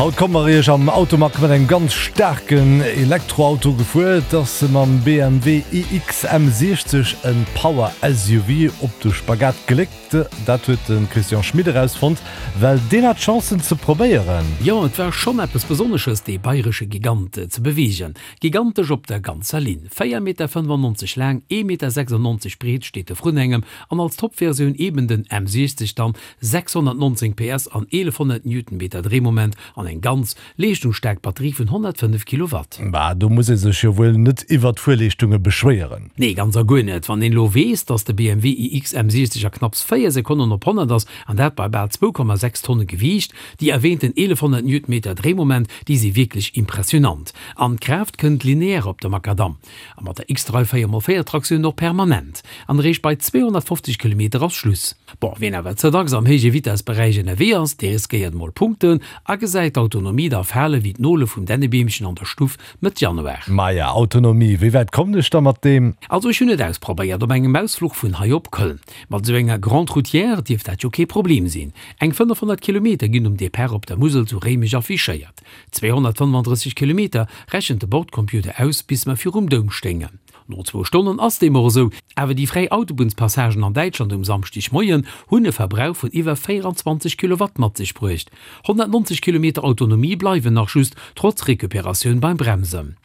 Haut komme mer iech am Automag mat engem ganz staarken Elektroauto gefuer. Et ass mam BMW iX M60 e Power SUV op de Spagat geléckt. Dat huet de Christian Schmit erausfonnt, well deen hat d'Chance en ze probéieren. Jo, et war schonn eppes Besonnesches dee bayresche Gigant ze beweegen. Gigantesch op der ganzer Linn. 4 Meter 95 laang, 1 Meter 96 breet steet e vrun engem an als Topversioun eben den M60 dann 619 PS an 1100 Newtonmeter Dréimoment an eng ganz leeschtungsstaark Batterie vun 105 Kilowatt. Bah, do muss ee sech jo wuel net iwwert d'Fuerleeschtunge beschwéieren. Nee, ganz a guer net. Wann een elo weess, dass de BMW iX M60 a knapps 4 Sekonnen op 100 ass, an dat bei bal 2,6 Tonne Gewiicht, déi erwähnten 1100 Newtonmeter Dréimoment, déi si wierklech impressionant. An d'Kraaft kënnt lineaire op de Makadamm. A mat der X-Drive 4 x 4 Traktioun och permanent. An eréischt bei 250 Kilometer ass Schluss. Bon, wien awer ze dacks am héije Vitessberäich ënnerwee ass, dee riskéiert mol Punkten a gesäit d'Autonomie da fale wéi d'Nole vum Dännebeemchen an der Stuff Mëtt Januar. Maja, Autonomie, wéi wäit kommen ech da mat deem? Also ech hunn et ausprobéiert op engem Ausfluch vun hei op Köln. Mat esou enger Grande Routière dierft dat jo kee Problem sinn. Eng 500 Kilometer ginn um Depart op der Musel zu Réimech affichéiert. 235 Kilometer rechent de Bordcomputer aus bis mer virum Doum stéingen. No zwou Stonnen ass deem och esou, awer déi fräi Autobunnspassagen an Däitschland um Samschdegmoien hunn e Verbrauch vun iwwer 24 Kilowatt mat sech bruecht. 190 Kilometer Autonomie bleiwen nach just, trotz Recuperatioun beim Bremsen.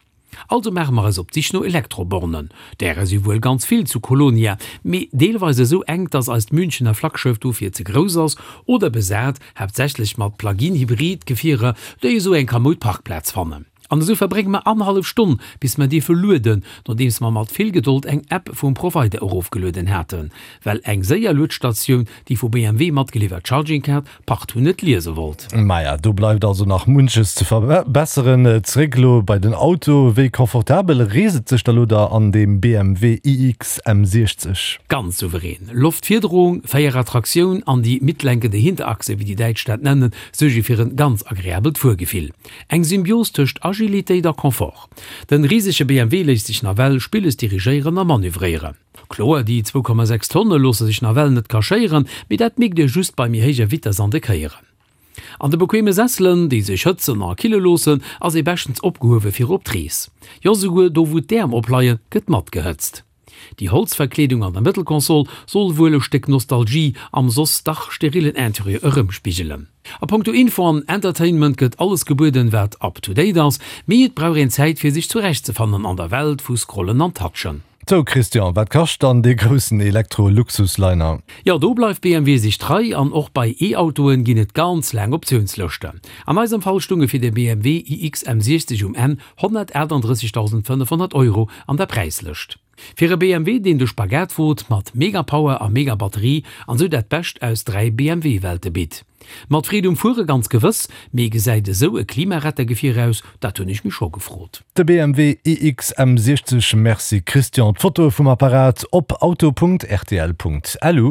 Also maache mer eis op d'Sich no Elektrobornen. Därer si wuel ganz vill zu Kolonia, mee deelweis esou enk, dass eist Münchener Flaggschëff dofir ze grouss ass, oder besat, haaptsächlech mat Plug-in-Hybrid-Gefierer, déi esou eng kamoud Parkplaz fannen. An esou verbrénge mer annerhallef Stonn, bis mer dierfe lueden, nodeems mer mat vill Gedold eng App vum Provider erofgelueden haten, well eng séier Luedstatioun déi vu BMW matgeliwwert Charging Card partout net liese wollt. Maja, do bleift also nach munches ze verbesseren. Zeréck elo bei den Auto, Wéi confortabel reest et sech da lo da an deem BMW iX M60? Ganz souverän. Loftfiederung, Véierrad-Traktioun an déi mitlenkende Hinterachse, wéi déi Däitsch dat nennen, suerge fir en ganz agreabelt Fuergefill. Eng Symbios tëscht Agilitéit a Confort. Den risege BMW léisst sech nawell spilles dirigéieren a manövréieren. Kloer, déi 2,6 Tonne loosse sech nawell net cachéieren, mee dat mierkt Dir just bei méi héijer Vitess an de Kéieren. An de bequeme Sesselen, déi sech hëtzen a kille loossen, ass ee beschtens opgehuewe fir op d'Rees. Jo, souguer do wou d'Äerm opleien, gëtt matgehëtzt. Déi Holzverkleedung an der Mëttelkonsol soll wuel e Stéck Nostalgie am soss dach sterillen Interieur erëmspigelen. A punkto Info an Entertainment gëtt alles gebueden, wat up to date ass, mee et brauch een Zäit fir sech zurechtzefannen an der Welt vu Scrollen an Touchen. Sou Christian, wat kascht dann dee groussen Elektro-Luxusliner? Jo, do bleift BMW sech trei an och bei E-Autoen ginn et ganz laang Optiounslëschten. An eisem Fall stunge fir de BMW iX M60 um Enn 138.500 Euro an der Präislëscht. Fir e BMW, deen de Spagat wot mat Mega-Power a Mega-Batterie an sou dat Bescht aus 3 BMW-Welte bitt. Mat Freed um Fuere ganz gewëss, mee gesäit esou e Klimarettergefier aus? Dat hunn ech mech scho gefrot. De BMW iX M60 Merci Christian, d'Fotoe vum Apparat op auto.rtl.lu.